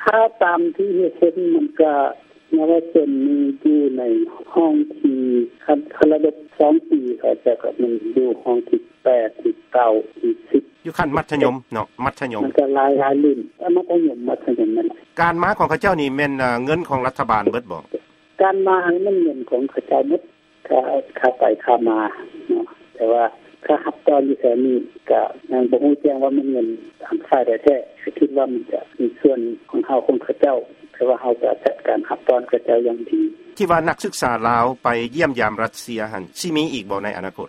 ຖ້າຕາມທີ່ເຫັນ ມັນກະ ເຍົາວະຊົນນີ້ຢູ່ໃນຫ້ອງທີ່ ຄັນ ຄັນລະດົບສອງປີ ເຂົາເຈົ້າກະແມ່ນຢູ່ຫ້ອງທີແປດ ທີເກົ້າ ທີສິບ ຢູ່ຂັ້ນມັດທະຍົມເນາະ ມັດທະຍົມ ມັນກະຫຼາຍ ຫຼາຍລຸ້ນ ມັດທະຍົມ ມັດທະຍົມນັ້ນແຫຼະ. ການມາຂອງເຂົາເຈົ້ານີ້ແມ່ນເງິນຂອງລັດຖະບານເບິດບໍ່? ການມານີ້ແມ່ນເງິນຂອງເຂົາເຈົ້າໝົດ ຄ່າ ຄ່າໄປຄ່າມາເນາະ ແຕ່ວ່າຄ່າຮັບຕອນຢູ່ແຖວນີ້ກະຍັງບໍ່ຮູ້ແຈ້ງວ່າແມ່ນເງິນທາງຝ່າຍໃດແທ້ ກະຄິດວ່າມັນຈະມີສ່ວນຂອງເຮົາ ຂອງເຂົາເຈົ້າ ແຕ່ວ່າເຮົາກະຈັດການຮັບຕ້ອນເຂົາເຈົ້າຢ່າງດີ. ທີ່ວ່ານັກສຶກສາລາວໄປຢ້ຽມຢາມຣັດເຊຍຫັ້ນ ຊິມີອີກບໍ່ໃນອະນາຄົດ?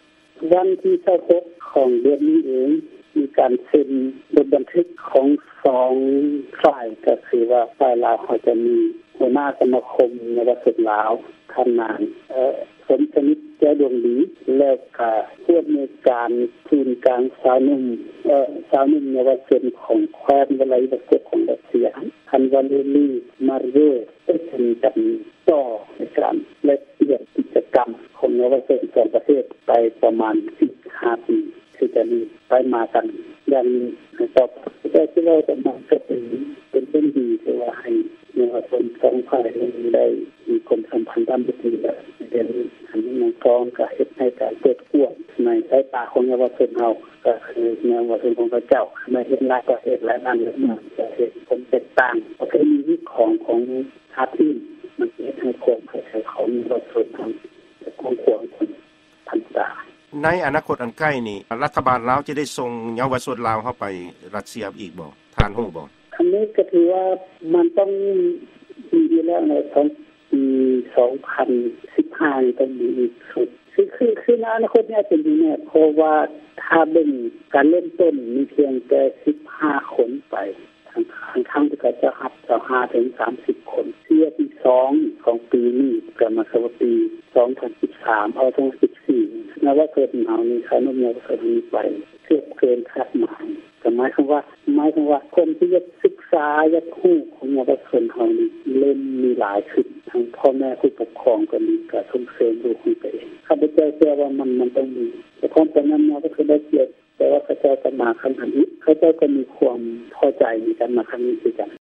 ວັນທີຊາວຫົກຂອງເດືອນນີ້ເອງ ມີການເຊັນບົດບັນທຶກຂອງສອງຝ່າຍ ກະຄືວ່າຝ່າຍລາວເຮົາຈະມີຫົວໜ້າສະມາຄົມເຍົາວະຊົນລາວ ທ່ານນາງ ເອີ ສົມສະໜິດ ແກ້ວດວງດີ ແລ້ວກະຜູ້ອຳນວຍການສູນກາງຊາວໜຸ່ມ ເອີ ຊາວໜຸ່ມເຍົາວະຊົນຂອງແຄວ້ນວລາດິວອສໂຕກຂອງຣັດເຊຍ ທ່ານ ວາເລລີ ມາເຣຍ ເຊິ່ງເປັນການຕໍ່ໃນການແລກປ່ຽນກິດຈະກຳຂອງເຍົາວະຊົນສອງປະເທດໄປປະມານສີ່ຫ້າປີ ຄືຈະມີໄປມາກັນຢ່າງນີ້ຕໍ່ໄປ. ແຕ່ທີ່ເວົ້າກັນມາກະເປັນ ເປັນເລື່ອງດີ ທີ່ວ່າໃຫ້ເຍົາວະຊົນສອງຝ່າຍໄດ້ມີຄວາມສຳພັນທຳອິດດີ ແລະ ໃນເດືອນນີ້ ອັນນີ້ມັນກະເຮັດໃຫ້ການເປີດກວ້າງໃນສາຍຕາຂອງເຍົາວະຊົນເຮົາ ກະຄືເຍົາວະຊົນຂອງເຂົາເຈົ້າ ມາເຫັນຫຼາຍປະເທດ ຫຼາຍບ້ານ ຫຼາຍເມືອງ ກະເຫັນຄວາມແຕກຕ່າງປະເພນີຂອງ ຂອງຊາດອື່ນ ມັນເຮັດໃຫ້ຄວາມເຂົ້າໃຈຂອງເຍົາວະຊົນເຮົາກວ້າງຂວາງຂຶ້ນທັນຕາ. ໃນອະນາຄົດອັນໃກ້ນີ້ ລັດຖະບານລາວຈະໄດ້ສົ່ງເຍົາວະຊົນລາວເຮົາໄປຣັດເຊຍອີກບໍ່? ທ່ານຮູ້ບໍ່? ອັນນີ້ກະຖືວ່າມັນຕ້ອງມີຢູ່ແລ້ວໃນ ສອງ ປີສອງພັນສິບຫ້ານີ້ຕ້ອງມີອີກຊຸດ ຄື ຄື ຄືໃນອະນາຄົດນີ້ອາດຈະມີແນ່ ເພາະວ່າຖ້າເບິ່ງການເລີ່ມຕົ້ນມີພຽງແຕ່ສິບຫ້າຄົນໄປ ທັງ ທັງທີ່ເຂົາເຈົ້າຮັບຊາວຫ້າເຖິງສາມສິບຄົນ. ເທື່ອທີສອງຂອງປີນີ້ ກະໝາຍຄວາມວ່າປີສອງພັນສິບສາມ ເອົາ ສອງພັນສິບສີ່ ເຍົາວະຊົນເຮົານີ້ ຊາວໜຸ່ມເຍົາວະຊົນເຮົານີ້ໄປເກືອບເກີນຄາດໝາຍ ກະໝາຍຄວາມວ່າ ໝາຍຄວາມວ່າຄົນທີ່ຢາກສຶກສາ ຢາກຮູ້ຂອງເຍົາວະຊົນເຮົານີ້ເລີ່ມມີຫຼາຍຂຶ້ນ ທັງພໍ່ແມ່ຜູ້ປົກຄອງກະດີ ກະສົ່ງເສີມລູກຂອງຕົວເອງ. ຂ້າພະເຈົ້າເຊື່ອວ່າມັນ ມັນຕ້ອງມີ ແຕ່ຄວາມປານນັ້ນມາກະຄືໄດ້ກຽດ ແຕ່ວ່າເຂົາເຈົ້າກະມາຄັ້ງທຳອິດ ເຂົາເຈົ້າກະມີຄວາມພໍໃຈໃນການມາຄັ້ງນີ້ຄືກັນ.